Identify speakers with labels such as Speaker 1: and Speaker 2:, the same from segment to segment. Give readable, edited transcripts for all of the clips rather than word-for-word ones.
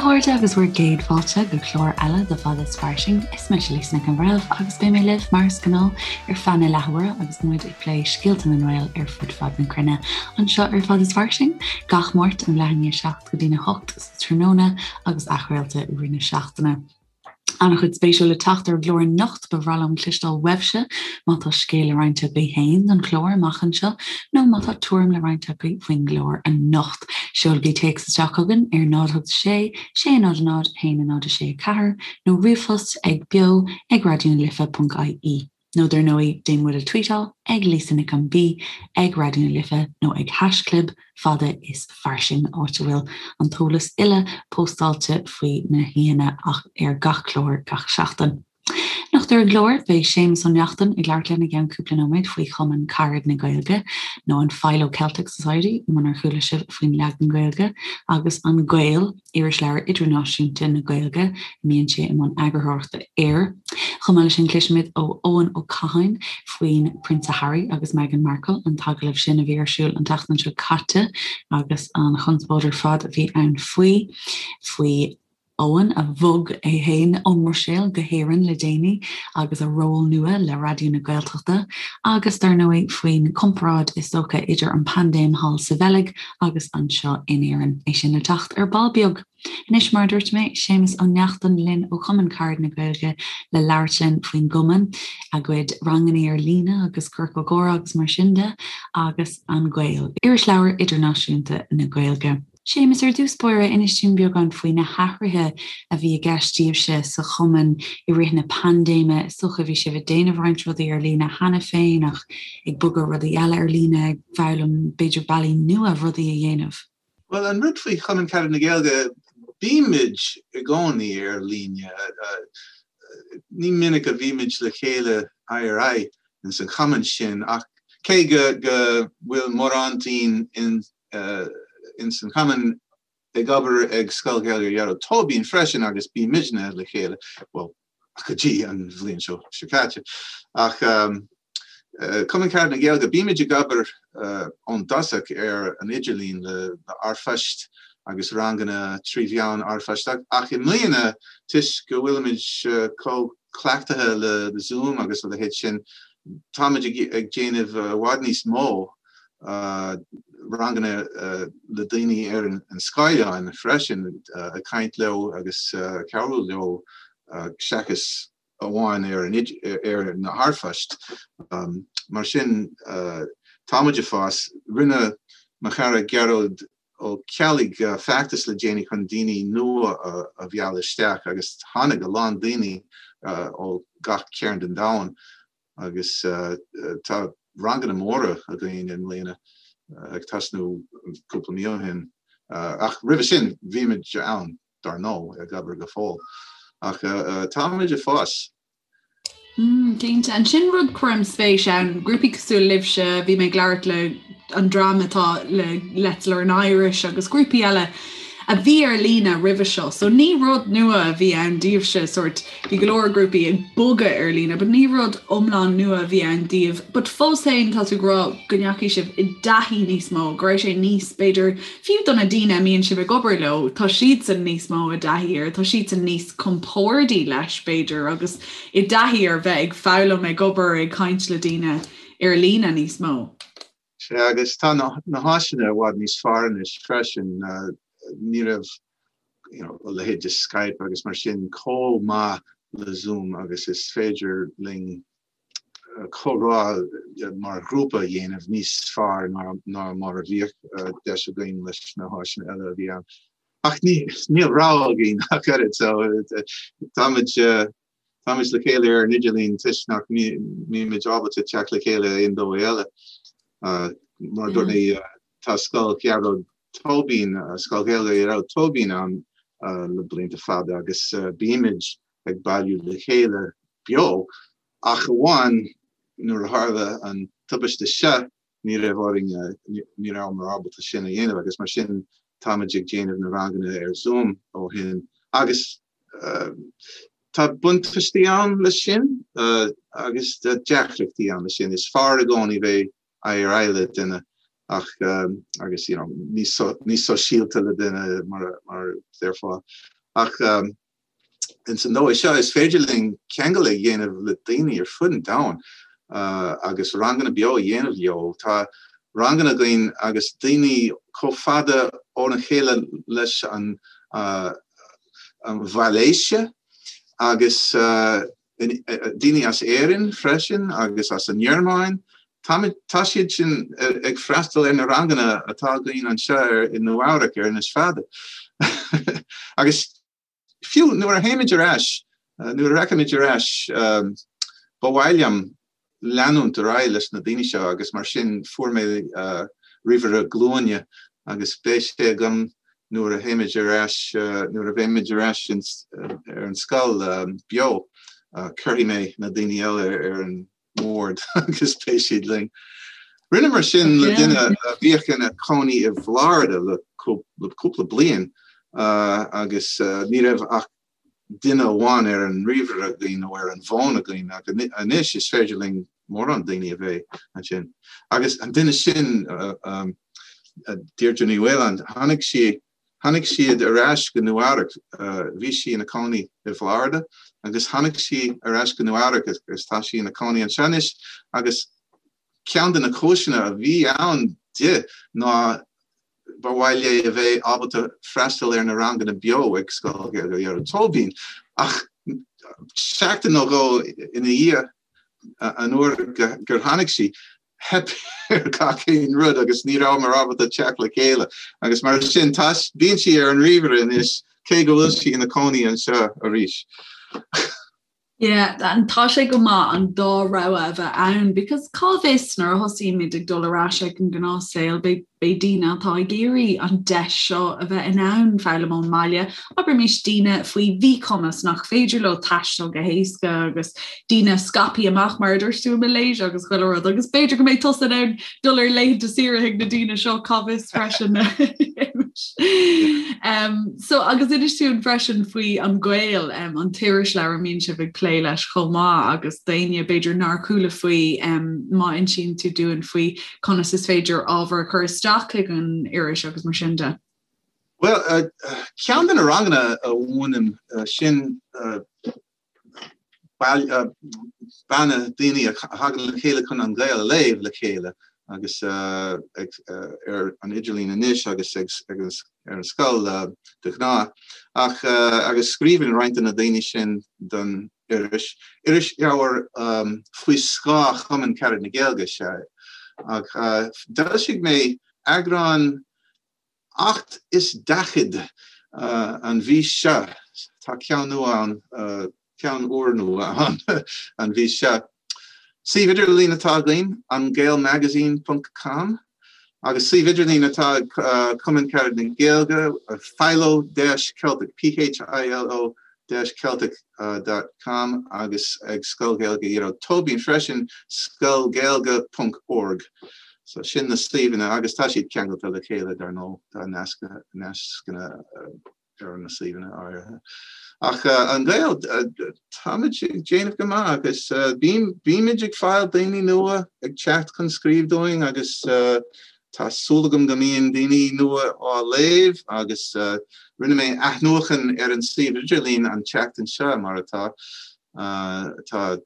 Speaker 1: a chairde agus bhur gcéad fáilte go clár eile de Fada is Fairsing. Is mise Lisa Nic an Bhreithimh agus beidh mé libh mar is gnáth ar feadh na leathuaire agus muid ag plé scéalta na nGael ar fud fad na cruinne anseo ar Fada is Fairsing gach Máirt ón leath i ndiaidh 7 go dtína 8 sa tráthnóna agus athchraolta i rith na seachtaine. An-chuid spéisiúil le teacht ar an gclár anocht, ba bhreá liom cloisteáil uaibhse má tá scéal le roinnt agaibh féin don chlár amach anseo nó má tá tuairim le roinnt agaibh faoin gclár anocht. Seolaigí téacs isteach chugainn ar 0 8 6 6 0 0 1 0 6 4 nó ríomhphost ag beo ag raidionalife.ie. Nó dar ndóigh, déan muid a tweetáil ag Lisa Nic an B, ag Raidió na Life nó ag haischlib fada is fairsing, áit a bhfuil an t-eolas uile póstáilte faoi na haíonna ar gach clár gach seachtain. Anocht ar an gclár, beidh Séamus Ó Neachtain ag labhairt linn i gceann cúpla nóiméad faoi Chumann Carad na Gaeilge, nó an Philo Celtic Society munar chuala sibh faoin leagan Gaeilge, agus An Gael. Irisleabhar Idirnáisiúnta na Gaeilge, a mbíonn sé i mbun eagarthóireachta air. Chomh maith leis sin, cloisfimid ó Eoin Ó Catháin faoin Prionsa Harry agus Meghan Markle, an t-agallamh sin a bhí ar siúl an tseachtain seo caite agus an chonspóid ar fad a bhí ann faoi, faoi Eoin a bhog é féin ón mBruiséil go hÉirinn le déanaí agus a ról nua le Raidió na Gaeltachta agus, dar ndóigh, faoin comparáid is dócha idir an paindéim thall sa Bheilg agus anseo in Éirinn. É sin le teacht ar ball beag. Anois, mar a dúirt mé, Séamus Ó Neachtain linn ó Chumann Carad na Gaeilge le labhairt linn faoin gcumann, a gcuid rangannaí ar líne agus ciorcal comhrá agus mar sin de, agus An Gael, Irisleabhar Idirnáisiúnta na Gaeilge. Séamus, ar dtús báire, inis dúinn beagán faoi na hathruithe a bhí i gceist daoibhse sa chumann i rith na paindéime. Is dócha bhí sibh ag déanamh roinnt rudaí ar líne cheana féin ach ag bogadh rudaí eile ar líne, ag foghlaim b'fhéidir bealaí nua rudaí a dhéanamh.
Speaker 2: Bhuel, an rud faoi Chumann Carad na Gaeilge, bímid i gcónaí ar líne. Ní minic a bhímid le chéile aghaidh ar aghaidh ins an chumann sin ach cé go bhfuil mórán dínn ins an chumann ag obair ag Scoil Ghaeilge Ghearóid Tóibín freisin agus bímidne le chéile, bhuel, go dtí an bhliain seo seo caite. Ach Cumann Carad na Gaeilge, bímid ag obair ón dtosach ar an idirlíon le r-phoist agus ranganna trí mheán r-phoist ach i mbliana toisc go bhfuilimid chomh cleachtaithe le Zoom agus a leithéid sin, táimid ag déanamh i bhfad níos mó ranganna le daoine ar an scáileán freisin, ag caint leo agus cabhrú leo seachas amháin ar ar na r-phoist. Mar sin, táimid ag fás. Rinne mo chara Gearóid Ó Ceallaigh feachtas le déanaí chun daoine nua a mhealladh isteach agus tháinig a lán daoine ó gach cearn den domhan. Agus tá ranganna móra againn i mbliana, ag tosnú cúpla mí ó shin. Ach roimhe sin, bhímid ann, dar ndóigh, ag obair go fóill. Ach táimid ag fás.
Speaker 3: Cinnte. Ansin rud cuirim spéis ann, grúpaí cosúil libhse, bhí mé ag labhairt le an dream atá le Let's Learn Irish agus grúpaí eile a bhí ar líne roimhe seo. So ní rud nua a bhí ann daoibhse, sort Bhí go leor grúpaí ag bogadh ar líne but ní rud iomlán nua a bhí ann daoibh. But fós féin tá tú ag rá go ndeachaigh sibh i dtaithí níos mó, go raibh sé níos, b'fhéidir, fiú do na daoine a mbíonn sibh ag obair leo, tá siadsan níos mó i dtaithí air, tá siadsan níos compordaí leis b'fhéidir agus i dtaithí ar bheith ag foghlaim, ag obair, ag caint le daoine ar líne níos mó.
Speaker 2: Sea, agus tá na háiseanna i bhfad níos fearr anois freisin. Ní raibh you know, a leithéid de Skype agus mar sin chomh maith le Zoom agus is féidir linn comhrá mar ghrúpa a dhéanamh níos fearr ná mar a bhíodh deis againn leis na háiseanna eile a bhí ann. Ach níl rogha againn ach oiread, so táimid táimid le chéile ar an idirlíon toisc nach mbímid ábalta teacht le chéile aon dóigh eile. Mar a dúirt mé, tá Scoil Ghearóid Tóibín, Scoil Ghaeilge Ghearóid Tóibín ann le blianta fada agus bímid ag bailiú le chéile beo ach amháin nuair a tharla an tubaiste seo ní raibh orainn, ní rabhamar ábalta sin a dhéanamh agus mar sin táimid ag déanamh na ranganna ar Zoom ó shin agus tá buntáistí ann leis sin agus deacrachtaí ann leis sin. Is fearr i gcónaí bheith aghaidh ar aghaidh le duine ach agus you know níos níos sóisialta le duine mar mar déarfá. Ach ins an dóigh seo is féidir linn ceangal a dhéanamh le daoine ar fud an domhain agus ranganna beo a dhéanamh leo. Tá ranganna againn agus daoine chomh fada óna chéile leis an Mhalaeisia agus daoine as Éirinn freisin agus as an nGearmáin. Tá siad sin ag freastal ar na ranganna atá againn anseo i Nua Eabhrac ar Inis Fada. Agus fiú nuair a théimid ar ais, nuair a rachaimid ar ais, ba mhaith liom leanúint ar aghaidh leis na daoine seo agus mar sin fuair mé ríomhaire glúine agus beidh sé agam nuair a théimid ar ais, nuair a bheimid ar ais ar an scoil beo, cuirfidh mé na daoine eile ar an mbord agus beidh siad linn. Rinneamar sin le duine a bhíodh ina cónaí i bhFlorida le cúpla bliain agus ní raibh ach duine amháin ar an ríomhaire againn nó ar an bhfón againn ach anois is féidir linn mórán daoine a bheith ansin. Agus an duine sin, Deirdre Ní Mhaoláin, tháinig sí, tháinig siad ar ais go Nua Eabhrac, bhí sí ina cónaí i bhFlorida agus tháinig sí ar ais go Nua Eabhrac agus tá sí ina cónaí anseo anois agus ceann de na cúiseanna a bhí ann di ná ba mhaith léi a bheith ábalta freastal ar na ranganna beo ag Scoil Ghaeilge Ghearóid Tóibín ach seachtain nó dhó ina dhiaidh an uair gur tháinig sí, theip ar gach aon rud agus ní rabhamar ábalta teacht le chéile agus mar sin tá, bíonn sí ar an ríomhaire anois cé go bhfuil sí ina cónaí anseo arís.
Speaker 3: Yeah, and tá sé go maith an dá rogha a bheith ann because cá bhfios nuair a thosaímid ag dul ar ais ag an ngnáthshaol beidh beidh daoine atá ag iarraidh an deis seo a bheith in ann foghlaim ón mbaile, abraimis daoine faoi mhíchumas nach féidir leo taisteal go héasca agus daoine scaipthe amach mar a dúirt tú i Malaysia agus chuile rud agus b'fhéidir go mbeidh tusa in ann dul ar laethanta saoire chuig na daoine seo cá bhfios freisin. Um, so agus inis dúinn freisin faoi An Gael um, an t-irisleabhar a mbíonn sibh ag plé leis chomh maith agus daoine b'fhéidir nár chuala faoi um, má insíonn tú dúinn faoi conas is féidir ábhar a chur isteach chuig an iris agus mar sin de.
Speaker 2: Well, uh, ceann de na ranganna a mhúinim uh, sin uh, banna daoine a thagann le chéile chun An Gael a léamh le chéile agus ar an idirlíon anois agus ar an scoil de ghnáth. Ach agus scríobhann roinnt de na daoine sin don iris. Irisleabhar faoi scáth Chumann Carad na Gaeilge is ea é. Ach d'fhoilsigh mé eagrán 48 an mhí seo. Tá ceann nua ann, ceann úrnua ann an mhí seo. Suíomh idirlín atá againn, angaelmagazine ponc com, agus suíomh idirlín atá ag Cumann Carad na Gaeilge, philo dash celtic, P-H-I-L-O dash celtic dot com agus ag Scoil Ghaeilge Ghearóid Tóibín freisin, scoilghaeilge ponc org. So sin na suíomhanna agus tá siad ceangailte le chéile dar ndóigh, tá nascanna ar na suíomhanna áirithe. Ach An Gael, táimid ag déanamh go maith agus bímid ag fáil daoine nua ag teacht chun scríobh dúinn agus Tá súil agam go mbíonn daoine nua á léamh agus rinne mé athnuachan ar an suíomh idirlín an tseachtain seo, mar atá. Tá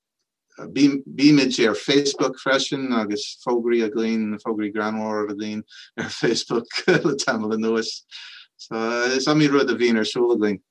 Speaker 2: bímid ar Facebook freisin agus fógraí againn, fógraí greannmhara againn ar Facebook le tamall anuas. So is iomaí rud a bhíonn ar siúl againn.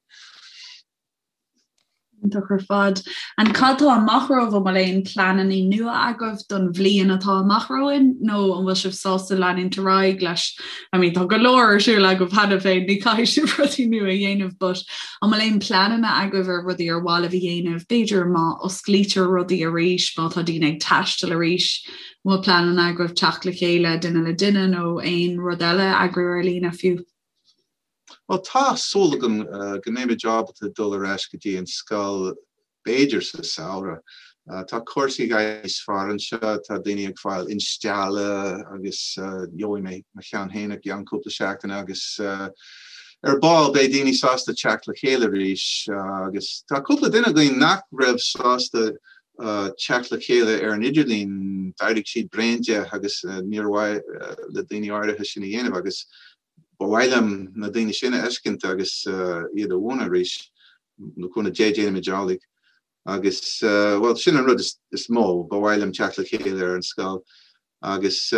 Speaker 3: Iontach ar fad. And cad tá amach romhaibh? An bhfuil aon pleananna nua agaibh don bhliain atá amach romhainn nó an bhfuil sibh sásta leanúint ar aghaidh leis? I mean tá go leor ar siúl agaibh cheana féin, ní chaithfidh sibh rudaí nua a dhéanamh but an bhfuil aon pleananna agaibh ar rudaí ar mhaith libh a dhéanamh? B'fhéidir má osclaítear rudaí arís, má tá daoine ag taisteal arís, an bhfuil pleananna agaibh teacht le chéile duine le duine nó aon rud eile a eagrú ar líne fiú?
Speaker 2: Bhuel, tá súil agam go mbeimid ábalta dul ar ais go dtí an scoil b'fhéidir sa samhradh. Tá cúrsaí ag éirí níos fearr anseo, tá daoine ag fáil instealladh agus gheobhaidh mé mo cheann féin i gceann cúpla seachtaine agus ar ball beidh daoine sásta teacht le chéile arís agus tá cúpla duine againn nach raibh sásta teacht le chéile ar an idirlíon, d'éirigh siad bréan de agus níor mhaith le daoine áirithe sin a dhéanamh agus. Ba mhaith liom na daoine sin a fheiscint agus iad a mhúineadh arís, le cúnamh Dé déanfaimid amhlaidh. Agus, bhuel, sin an rud is mó, ba mhaith liom teacht le chéile ar an scoil agus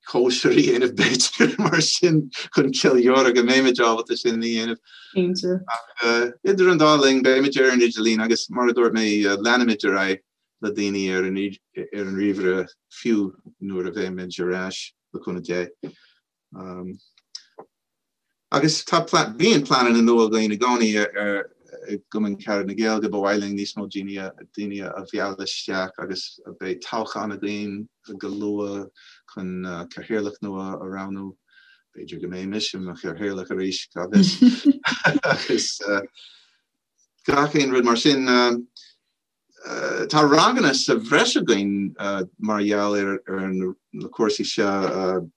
Speaker 2: cóisir a dhéanamh b'fhéidir mar sin chun ceiliúradh go mbeimid ábalta sin a dhéanamh.
Speaker 3: Cinnte.
Speaker 2: Ach idir an dá linn beimid ar an idirlíon agus mar a dúirt mé leanfaimid ar aghaidh le daoine ar an ar an ríomhaire fiú nuair a bheimid ar ais le cúnamh Dé. Agus tá bíonn pleananna nua againn i gcónaí ar i gCumann Carad na Gaeilge, ba mhaith linn níos mó daoine daoine a mhealladh isteach agus beidh toghchán againn go luath chun cathaoirleach nua a roghnú. B'fhéidir go mbeidh mise i mo chathaoirleach arís, cá bhfios. Agus gach aon rud mar sin. Tá ranganna sa bhreis againn mar gheall ar na cúrsaí seo.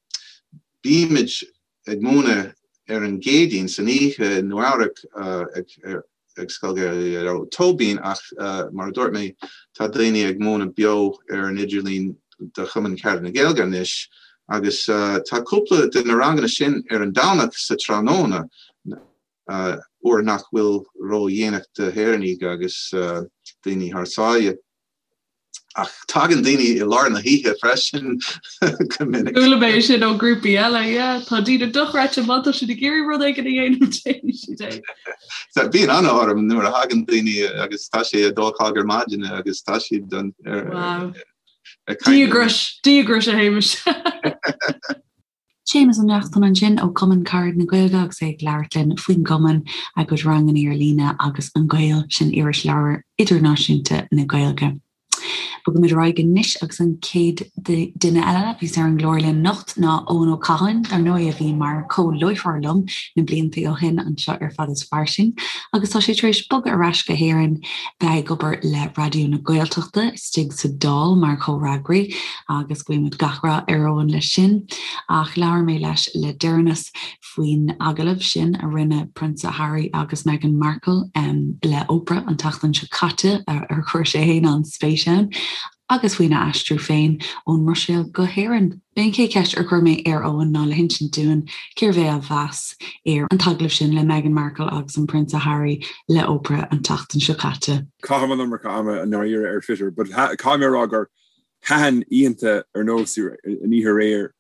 Speaker 2: Bímid ag múineadh ar an gCéadaoin san oíche i Nua Eabhrac ag Scoil Ghaeilge Tóibín ach mar a dúirt mé tá daoine ag múineadh beo ar an idirlíon do Chumann Carad na Gaeilge anois agus tá cúpla de na ranganna sin ar an Domhnach sa tráthnóna. uair nach bhfuil ró-dhéanach d'Éireannaigh agus daoine thar sáile. Ach tagann daoine i lár na hoíche freisin
Speaker 3: go minic. Chuala mé sin ó ghrúpaí eile, yeah. Tá daoine dochreidte má tá siad ag iarraidh rud éigin a dhéanamh déanfaidh siad
Speaker 2: é. Bíonn an-ionadh orm nuair a thagann daoine agus tá sé a dó a chlog ar maidin agus tá siad
Speaker 3: ar Wow. Díograis, díograis a Shéamais.
Speaker 1: Séamus Ó Neachtain ansin ó Chumann Carad na Gaeilge agus é ag labhairt linn faoin gcumann, a gcuid ranganna ar líne agus An Gael, sin irisleabhar idirnáisiúnta na Gaeilge. Bogaimid ar aghaidh anois agus an chéad duine eile a bheas ar an gclár linn anocht ná Eoin Ó Catháin, dar ndóigh a bhí mar chomh-láithreoir liom na blianta ó shin anseo ar Fad is Fairsing agus tá sé tar éis bogadh ar ais go hÉirinn bheith ag obair le Raidió na Gaeltachta istigh sa Dáil mar chomhfhreagraí agus guímid gach rath ar Eoin leis sin. Ach labhair mé leis le deireanas faoin agallamh sin a rinne Prionsa Harry agus Meghan Markle le Oprah an tseachtain seo caite ar chuir sé féin an-spéis ann agus faoina aistriú féin ón mBruiséil go hÉirinn. B'é an chéad cheist ar chuir mé ar Eoin ná le hinsint dúinn cérbh é a mheas ar an t-agallamh sin le Meghan Markle agus an Prionsa Harry le Oprah an tseachtain seo caite.
Speaker 4: Caithim an iomarca ama i ndáiríre ar Twitter but caithfidh mé a rá gur thaitin oícheanta ar nós an oíche aréir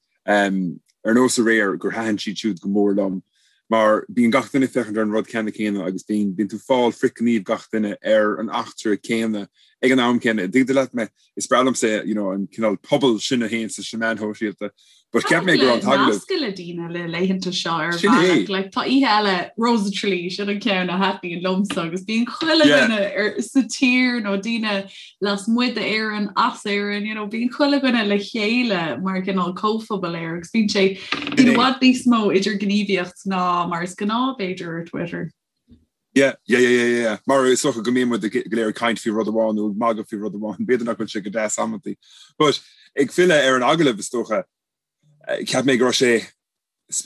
Speaker 4: ar nós aréir gur thaitin siad siúd go mór liom mar bíonn gach duine ag féachaint ar an rud ceanna céanna agus bíonn bíonn tú ag fáil frithghníomh gach duine ar an eachtra céanna ag an am céanna. An dtuigeann tú leat mé? Is breá liomsa you know, an cineál pobal sin a théann sna meáin shóisialta.
Speaker 3: But cheap mé go raibh an t-agallamh. Nascadh le daoine le laethanta seo ar bhealach. Like, tá oíche eile Rose of Tralee sin an ceann a thaitníonn liomsa agus bíonn chuile dhuine ar sa tír nó daoine lasmuigh d'Éirinn, as Éirinn, you know, bíonn chuile dhuine le chéile mar cineál comhphobal air agus bíonn sé bíonn i bhfad níos mó idirghníomhaíocht ná mar is gnáth b'fhéidir ar Twitter.
Speaker 4: Yeah, yeah, yeah, yeah, yeah. Mar is dócha go mbíonn muid go léir ag caint faoi rud amháin nó ag magadh faoi rud amháin, b'fhéidir nach bhfuil sé go deas amantaí. But ag filleadh ar an agallamh is dócha, eh, cheap mé go raibh sé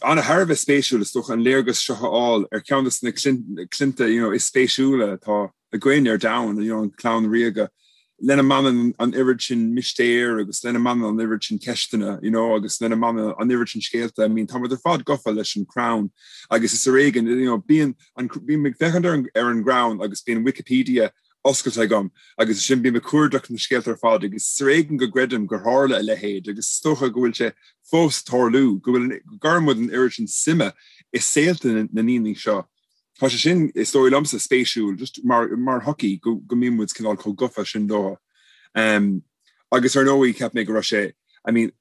Speaker 4: ana thar a bheith spéisiúil is dócha an léargas seo a fháil ar cheann de na clannta you know, is spéisiúla atá againn ar domhan, you know, an chlann ríoga, lena mbaineann an oiread sin mistéir agus lena mbaineann an oiread sin ceisteanna, you know, agus lena mbaineann an oiread sin scéalta. I mean, tá muid ar fad gafa leis an Crown agus is ar éigean, you know, bíonn an, bím ag féachaint ar an, ar an gCrown agus bíonn Wikipedia oscailte agam agus ansin bím ag cuardach na scéalta ar fad agus is ar éigean go gcreidim gur tharla a leithéid agus is dócha go bhfuil sé fós ag tarlú, go bhfuil, go gcuireann muid an oiread sin suime i saolta na ndaoine seo. Tá sé sin, is dóigh liomsa, spéisiúil, just mar, mar shochaí, go, go mbíonn muid cineál chomh gafa sin leo. Um, agus ar ndóigh, cheap mé go raibh sé, I mean,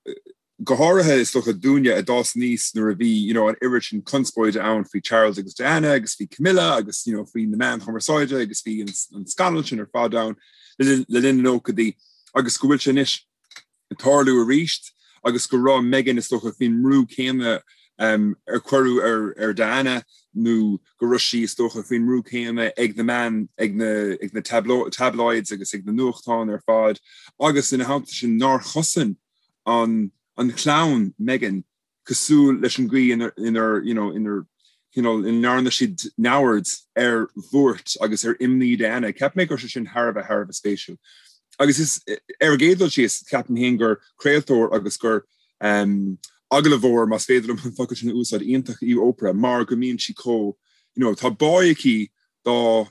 Speaker 4: go háirithe is dócha dúinne a d'fhás aníos nuair a bhí, you know, an oiread sin conspóide ann faoi Charles agus Diana agus faoi Camilla agus, you know, faoi na meáin chumarsáide agus bhí an, an scannal sin ar fad ann le, le linn na nóchaidí agus go bhfuil sé anois ag tarlú arís agus go raibh Meghan is dócha faoin mbrú céanna ar cuireadh ar ar Diana nó go raibh sí is dócha faoin mbrú céanna ag na meáin ag na ag na tabloids agus ag na nuachtáin ar fad agus ina theannta sin nár chosain an an chlann Meghan cosúil leis an gcaoi inar, inar, you know, inar, you know, ina ndearna siad neamhaird ar bhuairt agus ar imní Diana. Cheap mé go raibh sé sin thar a bheith, thar a bheith spéisiúil. Agus is, ar an gcéad dul síos, ceapaim féin gur craoltóir agus gur, um, agallamhóir, más féidir liom an focal sin a úsáid, iontach í Oprah mar go mbíonn sí chomh, you know, tá bá aici dá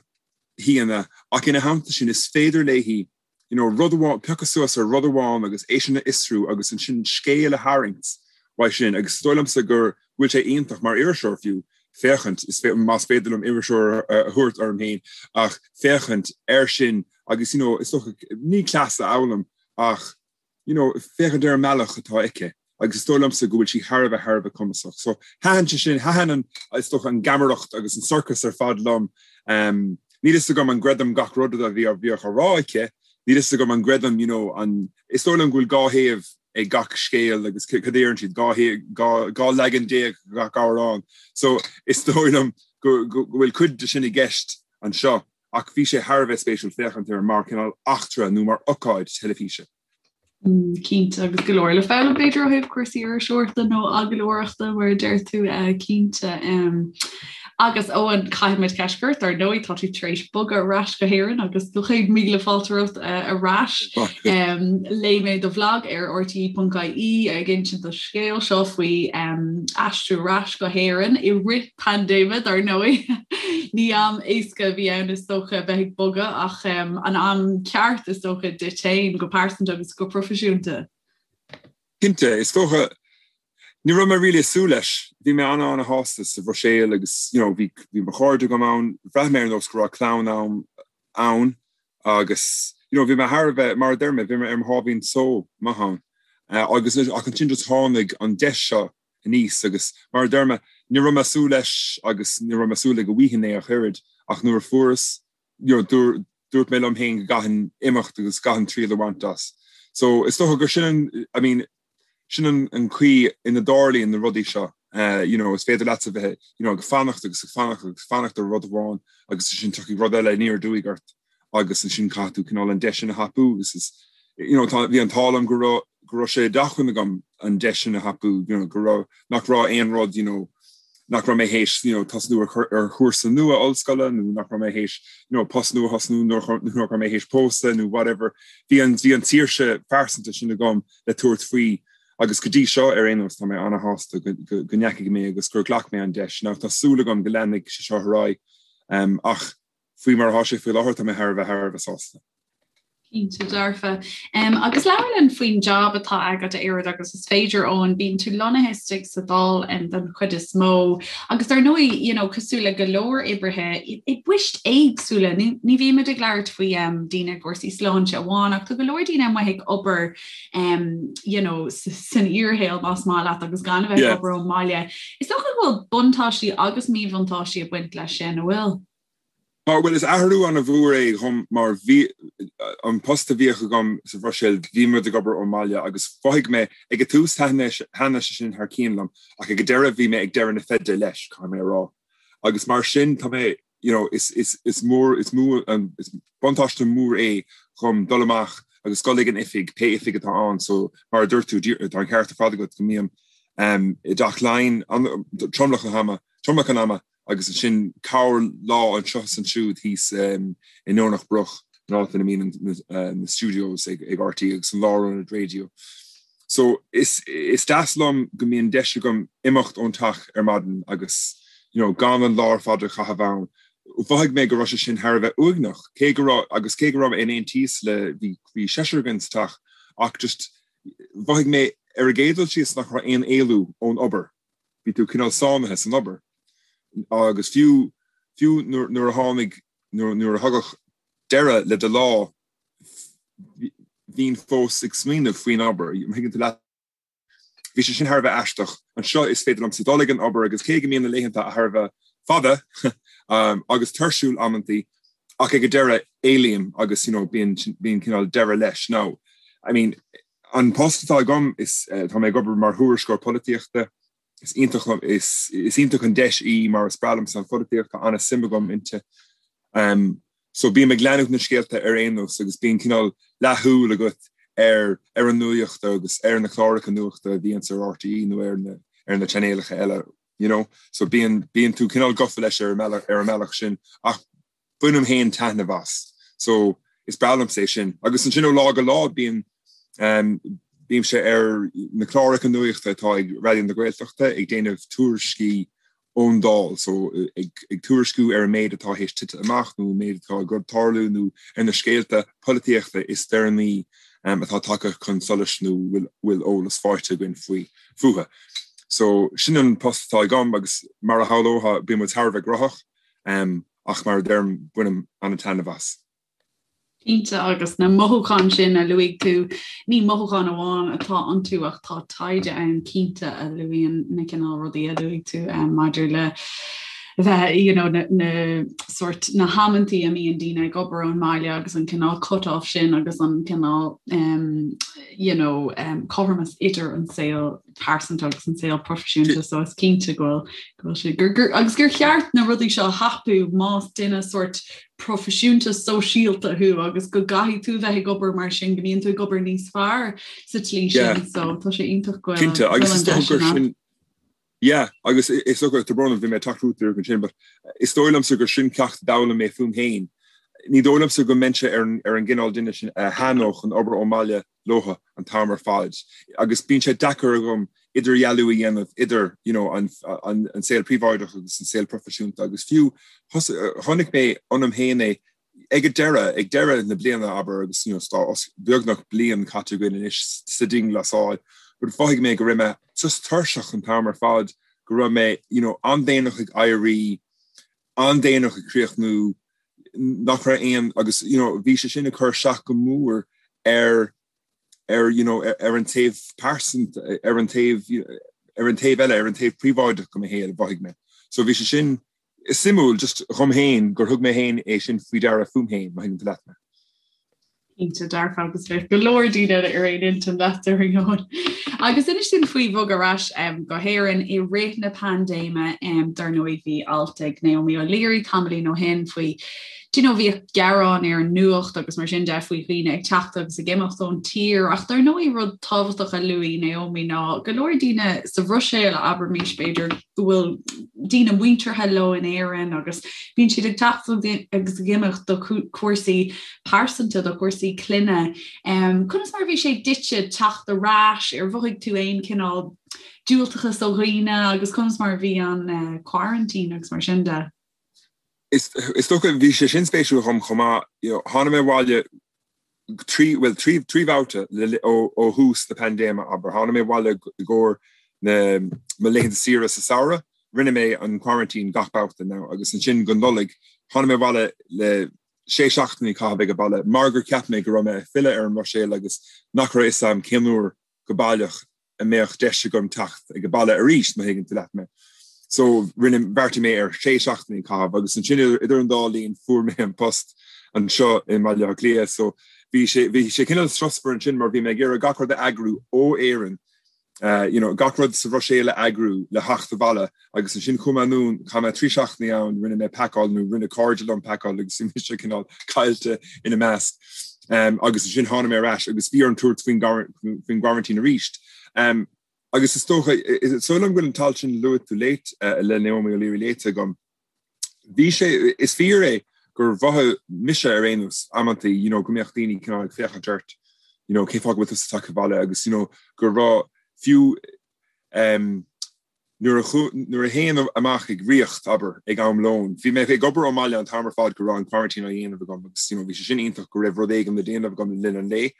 Speaker 4: haíonna ach ina theannta sin is féidir léi, you know, rud amháin, piocadh suas ar rud amháin agus é sin a fhiosrú agus ansin scéal a tharraingt uaidh sin agus is dóigh liomsa gur bhfuil sé iontach mar iriseoir fiú féachaint, is más féidir liom iriseoir a thabhairt orm féin, ach féachaint air sin agus, you know, is dócha, ní cleas a fhoghlaim ach, you know, féachaint ar an mbealach atá aici agus is dóigh liomsa go bhfuil sí thar a bheith, thar a bheith cumasach. So thaitin sé sin, thaitin an, is dócha, an gheamaireacht agus an sorcas ar fad liom. Um, níl fhios agam an gcreidim gach rud a bhí bhíodh á rá aici, níl fhios agam an gcreidim, you know, an, is dóigh liom go bhfuil dhá thaobh ag gach scéal agus cad a deireann siad, 12 leagan gach amhrán. So is dóigh liom go, go, go bhfuil cuid de sin i gceist anseo. Ach bhí sé thar a bheith spéisiúil féachaint air mar cineál eachtra nó mar ocáid teilifíse.
Speaker 3: Cinnte, agus go leor le foghlaim b'fhéidir ó thaobh cúrsaí iriseoireachta nó agallóireachta mar a deir tú, cinnte. Agus Eoin, caithfidh muid ceist a chur ort, ar ndóigh tá tú tar éis bogadh ar ais go hÉirinn agus do chéad míle fáilte romhat ar ais. Léigh mé do bhlag ar rte.ie ag insint do scéal seo faoi aistriú ar ais go hÉirinn i rith paindéime, dar ndóigh. Ní am éasca a bhí ann is dócha a bheith ag bogadh ach an am ceart is dócha duit féin go pearsanta agus go proifisiúnta.
Speaker 4: Cinnte, is dócha ní raibh mé really ag súil leis. Bhí mé an-an-shásta sa Bhruiséil agus you know bhí bhí mo chairde agam ann, bhraith mé ar nós go raibh clann a'm ann agus you know bhí mé thar a bheith, mar a deir mé, bhí mé ar mo sháimhín só maith ann. Agus ach ansin just tháinig an deis seo aníos agus mar a deir mé, ní raibh mé ag súil leis agus ní raibh mé ag súil le go bhfaighinn é ach oiread ach nuair a fuaireas, you know, dúirt mé liom féin go gcaithfinn imeacht agus gcaithfinn triail a bhaint as. So is dócha gur sin an, I mean, sin an, an chaoi ina dtarlaíonn na rudaí seo. Uh, you know, is féidir leat a bheith, you know, ag fanacht agus ag fanacht agus fanacht ar rud amháin agus ansin tiocfaidh rud eile aniar aduaidh ort. agus ansin caithfidh tú cineál an deis sin a thapú agus is you know tá bhí an t-ádh liom go raibh go raibh sé d'acmhainn agam an deis sin a thapú you know go raibh nach raibh aon rud you know nach raibh mé théis you know tosnú ar ar chúrsa nua ollscoile nó nach raibh mé théis you know post nua thosnú nó nach raibh mé théis pósadh nó whatever bhí an bhí an tsaoirse phearsanta sin agam le tabhairt faoi agus go dtí seo ar aon nós tá mé ana-shásta go go go ndeachaigh mé agus gur ghlac mé an deis. Now tá súil agam go leanfaidh sé seo ar aghaidh um, ach Faoi mar atá sé faoi láthair, tá mé thar a bheith thar a bheith sásta.
Speaker 3: Cinnte dearfa. Um, agus labhair linn faoin jab atá agat a oiread agus is féidir Eoin, bíonn tú lonnaithe istigh sa Dáil um, den chuid is mó. Agus dar ndóigh, you know, cosúil le go leor oibrithe i, i bpoist éagsúla, ní, ní bhímid ag labhairt faoi um, daoine i gcúrsaí sláinte amháin, ach tá go leor daoine amuigh ag obair um, you know, san fhíorshaol más maith leat agus gan a bheith ag obair ón mbaile. Is dócha go bhfuil buntáistí agus míbhuntáistí ag baint leis sin, an bhfuil?
Speaker 4: Tá, bhuel, is athrú an-mhór é dhom mar bhí an post a bhíodh agam sa Bhruiséil, bhí muid ag obair ón mbaile agus mhothaigh mé, ag an tús thaitnigh sé sin thar cionn liom ach ag an deireadh bhí mé ag deireadh na feide leis, caithfidh mé a rá. Agus mar sin tá mé, you know, is, is, is mór, is mó, is buntáiste mór é dhom dul amach agus dul ag an oifig, pé oifig atá ann, so mar a dúirt tú, tá an ceart ar fad agat go mbím i dTeach Laighean tromlach an ama, tromlach an ama agus ansin corr lá anseo is ansiúd thíos i nDomhnach Broc, an áit ina mbíonn na studios ag RTÉ agus an lárionad raidió. So is is deas liom go mbíonn deis agam imeacht ón teach ar maidin agus you know gan an lá ar fad a chaitheamh ann. Mhothaigh mé go raibh sé sin thar a bheith uaigneach, cé go raibh agus cé go raibh mé in aontíos le bhí bhí seisear againn sa teach ach just mhothaigh mé ar an gcéad dul síos nach raibh aon éalú ón obair. Bhí tú cineál sáinnithe san obair agus fiú fiú nuair a tháinig nuair a thagadh deireadh le do lá bhínn fós ag smaoineamh faoin obair. Thuigeann tú leat? Bhí sé sin thar a bheith aisteach. Anseo is féidir liomsa dul ag an obair agus cé go mbíonn na laethanta thar a bheith fada agus tuirsiúil amantaí ach ag an deireadh éalaím agus you know bíonn bíonn cineál deireadh leis. Now, I mean, An post atá agam, is tá mé ag obair mar thuairisceoir polaitíochta. Is iontach liom, is is iontach an deis í mar is breá liomsa an pholaitíocht, tá an-suim agam inti. So bím ag leanúint na scéalta ar aon nós agus bíonn cineál leathshúil agat ar ar an nuaíocht agus ar na cláracha nuachta a bhíonns ar RTÉ nó ar na ar na chainéalacha eile, you know. So bíonn bíonn tú cineál gafa leis ar an mbealach ar an mbealach sin ach bainim féin taitneamh as. So is breá liomsa é sin. Agus ansin ó lá go lá bíonn ehm Bímse ar na cláracha nuachta atá ag Raidió na Gaeltachta ag déanamh tuairiscí ón Dáil, so ag tuairisciú ar an méid atá théis tite amach nó an méid atá ag tarlú nó ar na scéalta polaitíochta is deireanaí atá tagtha chun solais nó bhfuil eolas faighte againn faoi fúthu. So sin an post atá agam agus mar a shamhlófá bíonn muid thar a bheith gnóthach ach mar a deirim bainim an-taitneamh as.
Speaker 3: Cinnte, agus na mothúcháin sin a luaigh tú, ní mothúcháin amháin atá iontu ach tá taighde ann cinnte a luaíonn na cineál rudaí a luaigh tú maidir le bheith, you know, na, na sort na hamantaí a mbíonn daoine ag obair ón mbaile agus an cineál cut-off sin agus an cineál um, you know, um, cothromas idir an saol pearsanta agus an saol proifisiúnta so is cinnte go bhfuil go bhfuil sé gur gur agus gur cheart na rudaí seo a thapú más duine sort proifisiúnta sóisialta thú agus go gcaithfidh tú bheith ag obair mar sin go mbíonn tú ag obair níos fearr sa tslí sin so tá sé iontach go bhfuil
Speaker 4: Cinnte agus is dócha gur sin Yeah, agus is dócha tá brón orm bhí mé ag teacht chugat díreach ansin, but is dóigh liomsa gur sin ceacht a d'fhoghlaim mé fúm féin. Ní dóigh liomsa go mbeinnse ar an ar an gcineál duine sin a thaitneodh an obair ón mbaile leothu an t-am ar fad agus bíonn sé deacair agam idirdhealú a dhéanamh idir you know, an, an, an saol príobháideach agus an saol proifisiúnta agus fiú chonaic mé ionam féin é ag an deireadh, ag deireadh na bliana abair agus you know, tá beagnach bliain caite againn anois sa dianghlasáil, but mhothaigh mé go raibh mé just tuirseach an t-am ar fad, go raibh mé you know, an-déanach ag éirí, an-déanach ag críochnú, nach raibh aon agus you know bhí sé sin ag cur isteach go mór ar ar you know ar an taobh pearsanta ar an taobh ar an taobh eile ar an taobh príobháideach de mo shaol mhothaigh mé. So bhí sé sin suimiúil just dhom féin gur thug mé féin é sin faoi deara fúm féin má thuigeann tú leat mé.
Speaker 3: Cinnte dearfa agus bheadh go leor daoine eile ar aon intinn leat ar ndóigh. Agus inis dúinn faoi bhogadh ar ais go hÉirinn i rith na paindéime, dar ndóigh bhí alt ag Naomi O'Leary tamaillín ó shin faoi do you know bhíodh gearáin ar an nuacht agus mar sin de faoi dhaoine ag teacht agus ag imeacht ón tír ach dar ndóigh rud tábhachtach a luaigh Naomi ná go leor daoine sa Bhruiséil abraimis b'fhéidir go bhfuil daoine muinteartha leo in Éirinn agus bíonn siad ag teacht agus ag imeacht do chúrsaí pearsanta, do chúrsaí clainne. Conas mar a bhí sé duitse teacht ar ais, ar mhothaigh tú aon chineál diúltachas ó dhaoine agus conas mar a bhí an quarantine agus mar sin de?
Speaker 4: Is dócha, bhí sé sin spéisiúil dhom chomh maith. Tháinig mé abhaile trí, bhuel, trí, trí bhabhta ó thús na paindéime, abair. Tháinig mé abhaile i gcomhair na, mo laethanta saoire sa samhradh. Rinne mé an quarantine gach babhta now agus ansin go Nollaig, tháinig mé abhaile le sé seachtainí a chaitheamh ag an baile mar gur cheap mé go raibh mé ag filleadh ar an mBruiséil agus nach raibh a fhios agam cén uair go baileach a mbeadh deis agam teacht ag an baile arís, má thuigeann tú leat mé. So rinne, bheartaigh mé ar sé seachtainí a chaitheamh agus ansin idir an dá linn fuair mé an post anseo i mBaile Átha Cliath so bhí sé, bhí sé cineál strusmhar ansin mar bhí mé ag iarraidh gach rud a eagrú ó Éirinn you know, gach rud sa Bhruiséil a eagrú le theacht abhaile agus ansin chuaigh mé anonn, chaith mé 3 seachtainí ann, rinne mé pacáil nó rinne cairde liom pacáil agus bhí mise cineál caillte ina measc. Um, agus ansin tháinig mé ar ais agus bhí orm tabhairt faoin faoin gquarantine arís. Um, agus is dócha, is dóigh liom go bhfuil an t-alt sin luaigh tú léite uh, le Naomi O'Leary léite agam. Bhí sé, is fíor é gur mhothaigh mise ar aon nós amantaí, you know, go mbeadh daoine cineál ag féachaint ort, you know, cén fáth go bhfuil tusa tagtha abhaile agus, you know, go raibh fiú um, nuair a nuair a théinn amach ag ríocht, abair, ag am lóin, bhí mé ag obair ón mbaile an t-am ar fad go raibh an quarantine á dhéanamh agam agus, you know, bhí sé sin iontach go raibh rud éigin le déanamh agam le linn an lae,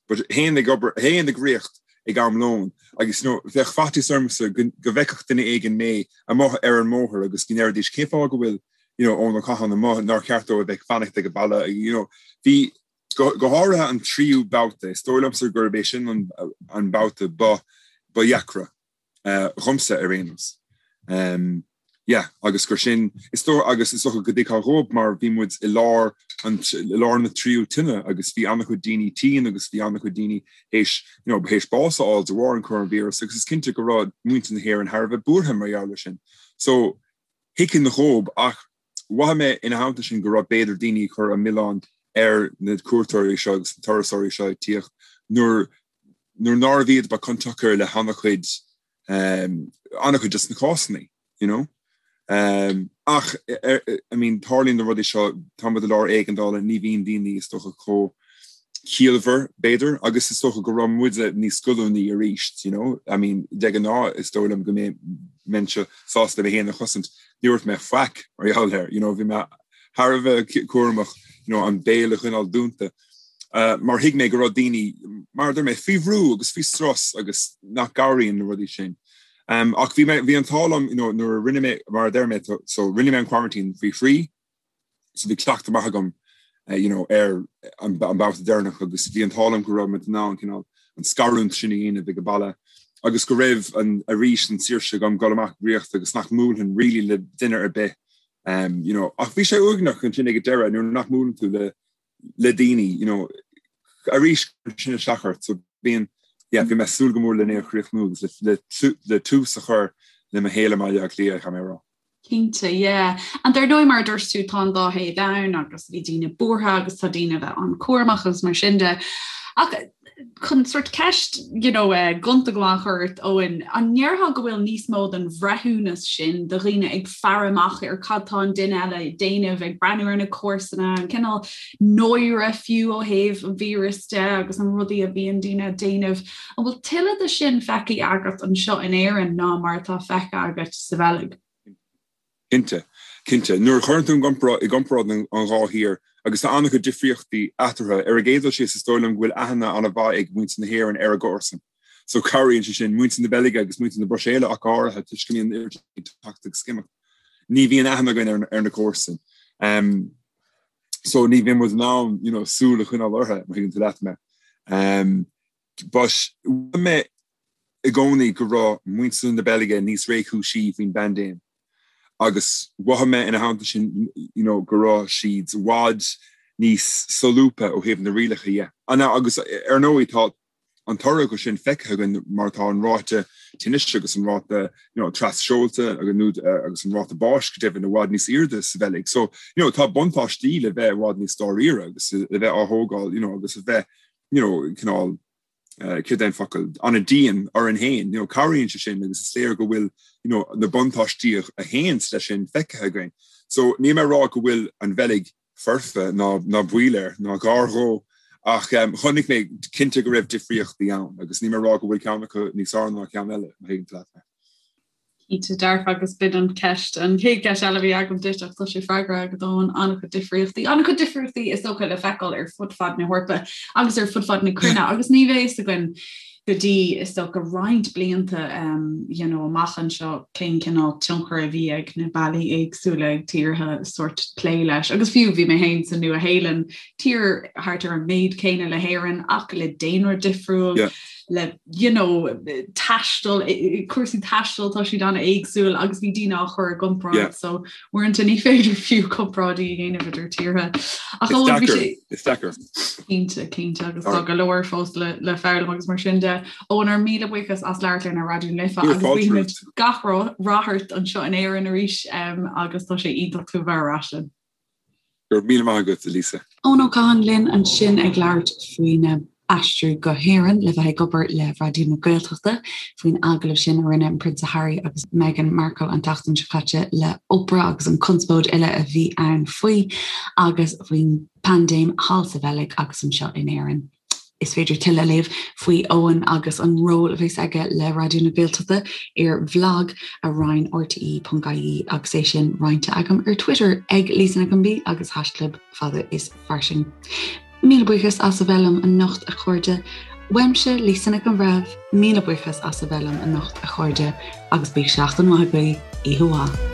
Speaker 4: but théinn ag obair, théinn ag ríocht ag am lóin agus, you know, bheadh faitíos ormsa go, go bhfeicfeadh duine éigin mé amuigh ar an mbóthar agus go ndéarfaidís cén fáth go bhfuil you know, Eoin Ó Catháin amuigh nár cheart dó a bheith ag fanacht ag an baile you know, bhí go, go háirithe an tríú babhta, is dóigh liomsa gurb é sin an, an babhta ba, ba dheacra uh, dhomsa ar aon nós. Um, yeah, agus gur sin, is dóigh, agus is dócha go dtuigfeá dhóibh mar bhí muid i lár an, i lár na tríú tine agus bhí an-chuid daoine tinn agus bhí an-chuid daoine théis, you know, théis bás a fháil de bharr an coróinvíreas agus is cinnte go raibh muintir na hÉireann thar a bheith buartha mar gheall air sin. So, thuigfinn dhóibh ach mhothaigh mé ina theannta sin go raibh b'fhéidir daoine ag cur an milleán ar na cuairteoirí seo agus na turasóirí seo ag tíocht nuair nuair nárbh iad ba cionsiocair le han-chuid um, an-chuid des na cásanna, you know. Um, ach, I mean, tarlaíonn na rudaí seo, tá muid i lár éigeandála, ní bhíonn daoine is dócha chomh. ciallmhar, b'fhéidir, agus is dócha go raibh muide níos goilliúnaí arís, you know, I mean, de ghnáth is dóigh liom go mbeinnse sásta mé féin a chosaint, ní dúirt mé faic mar gheall air, you know, bhí mé thar a bheith cúramach, you know, an béal a choinneáil dúnta, mar thuig mé go raibh daoine, mar a deir mé, faoi bhrú agus faoi strus agus nach gcabhraíonn na rudaí sin. Ach bhí mé, bhí an t-ádh liom, you know, nuair a rinne mé, mar a deir mé, so rinne mé an quarantine faoi thrí, so bhí cleachtadh maith agam you know, ar an babhta deireanach agus bhí an t-ádh liom go raibh muid in ann cineál an scarúint sin a dhéanamh ag an baile agus go raibh an arís an saoirse agam dul amach ag rith agus nach mbuailfinn really le duine ar bith um, you know, ach bhí sé uaigneach ansin ag an deireadh nuair nach mbuaileann tú le le daoine you know, arís sin isteach ort so bíonn yeah, bhí mé ag súil go mór lena chríochnú agus le, le, le tús a chur le mo shaol i mBaile Átha Cliath, caithfidh mé a rá.
Speaker 3: Cinnte, yeah. And dar ndóigh mar a dúirt tú tá an dá thaobh ann agus bhí daoine buartha agus tá daoine a bheith an-chúramach agus mar sin de. Ach chun sort ceist you know, uh, gonta go maith a chur ort Eoin, an ndéarfá go bhfuil níos mó den bhreithiúnas sin de dhaoine ag faire amach ar cad tá an duine eile ag déanamh, ag breathnú ar na comharsana, an cineál náire fiú ó thaobh an víreas de agus an rudaí a bhíonn daoine ag déanamh. An bhfuil tuilleadh de sin feicthe agat anseo in Éirinn ná mar atá feicthe agat sa Bheilg?
Speaker 4: Cinnte. Cinnte. Nuair a chuireann tú i gcomparáid an dhá thír, agus tá an-chuid difríochtaí eatarthu, ar an gcéad dul síos is dóigh liom go bhfuil aithne an-mhaith ag muintir na hÉireann ar a gcomharsain. So cabhraíonn sé sin. Muintir na Beilge agus muintir na Bruiséile ach go háirithe, toisc go mbíonn an oiread ag teacht agus ag imeacht. Ní bhíonn aithne againn ar na comharsain. So ní bhíonn muid in ann, you know, súil a choinneáil orthu, má thuigeann tú leat mé. But mhothaigh mé i gcónaí go raibh muintir na Beilge níos réchúisí faoin bpaindéim agus mhothaigh mé ina theannta sin you know go raibh siad i bhfad níos solúbtha ó thaobh na rialacha dhe. Agus ar ndóigh tá an toradh acu sin feicthe againn mar tá an ráta tinnis agus an ráta you know tras-seolta agus an ráta báis go deimhin i bhfad níos airde sa Bheilg. So you know tá buntáistí le bheith i bhfad níos dáiríre agus le bheith á thógáil you know agus a bheith you know, cineál, céard é an focal, an-dian orainn féin, you know, cabhraíonn sé sin agus is léir go bhfuil, you know, na buntáistí a théanns leis sin feicthe againn. So níl mé ag rá go bhfuil an Bheilg foirfe ná ná baol air ná gar dhó ach um, chonaic mé cinnte go raibh difríochtaí ann agus níl mé ag rá go bhfuil ceann acu níos fearr ná ceann eile, má thuigeann tú leat mé.
Speaker 3: Cinnte dearfa agus b'in an ceist, an chéad cheist eile a bhí agam duit ach tá sé freagraithe agat Eoin, an-chuid difríochtaí, an-chuid difríochtaí is dócha le feiceáil ar fud fad na hEorpa agus ar fud fad na cruinne agus ní bheidh fhios againn go dtí is dócha roinnt blianta um, you know, amach anseo cén cineál tionchar a bhí ag na bealaí éagsúla ag tíortha sort plé leis. Agus fiú bhí mé féin sa Nua-Shéalainn, tír thart ar an méid céanna le hÉirinn ach le daonra difriúil. Yeah. le you know taisteal cúrsaí taistil tá siad an-éagsúil agus bhí daoine á chur i gcomparáid so uaireanta ní féidir fiú comparáidí a dhéanamh idir tíortha.
Speaker 4: Ach ó bhí sé Is deacair.
Speaker 3: Cinnte cinnte agus tá go leor fós le le foghlaim agus mar sin de Eoin ár míle buíochas as labhairt linn ar Raidió na Life agus guímid gach rath ort anseo in Éirinn arís um, agus tá sé iontach tú a bheith ar ais linn.
Speaker 4: Go raibh míle maith agat, a Lisa.
Speaker 1: Eoin Ó Catháin linn ansin ag labhairt faoina aistriú go hÉirinn le bheith ag obair le Raidió na Gaeltachta, faoin agallamh sin a rinne an Prionsa Harry agus Meghan Markle an tseachtain seo caite le Oprah agus an conspóid uile a bhí ann faoi, agus faoin bpaindéim thall sa Bheilg agus anseo in Éirinn. Is féidir tuilleadh a léamh faoi Eoin agus an ról a bheas aige le Raidió na Gaeltachta ar bhlag a roinn rte.ie agus é sin roinnte agam ar Twitter ag Lisa Nic an B agus haischlib fada is fairsing. Míle buíochas as a bheith liom anocht a chairde. Uaimse Lisa Nic an Bhreithimh, míle buíochas as a bheith liom anocht a chairde agus bíodh seachtain mhaith agaibh, oíche mhaith.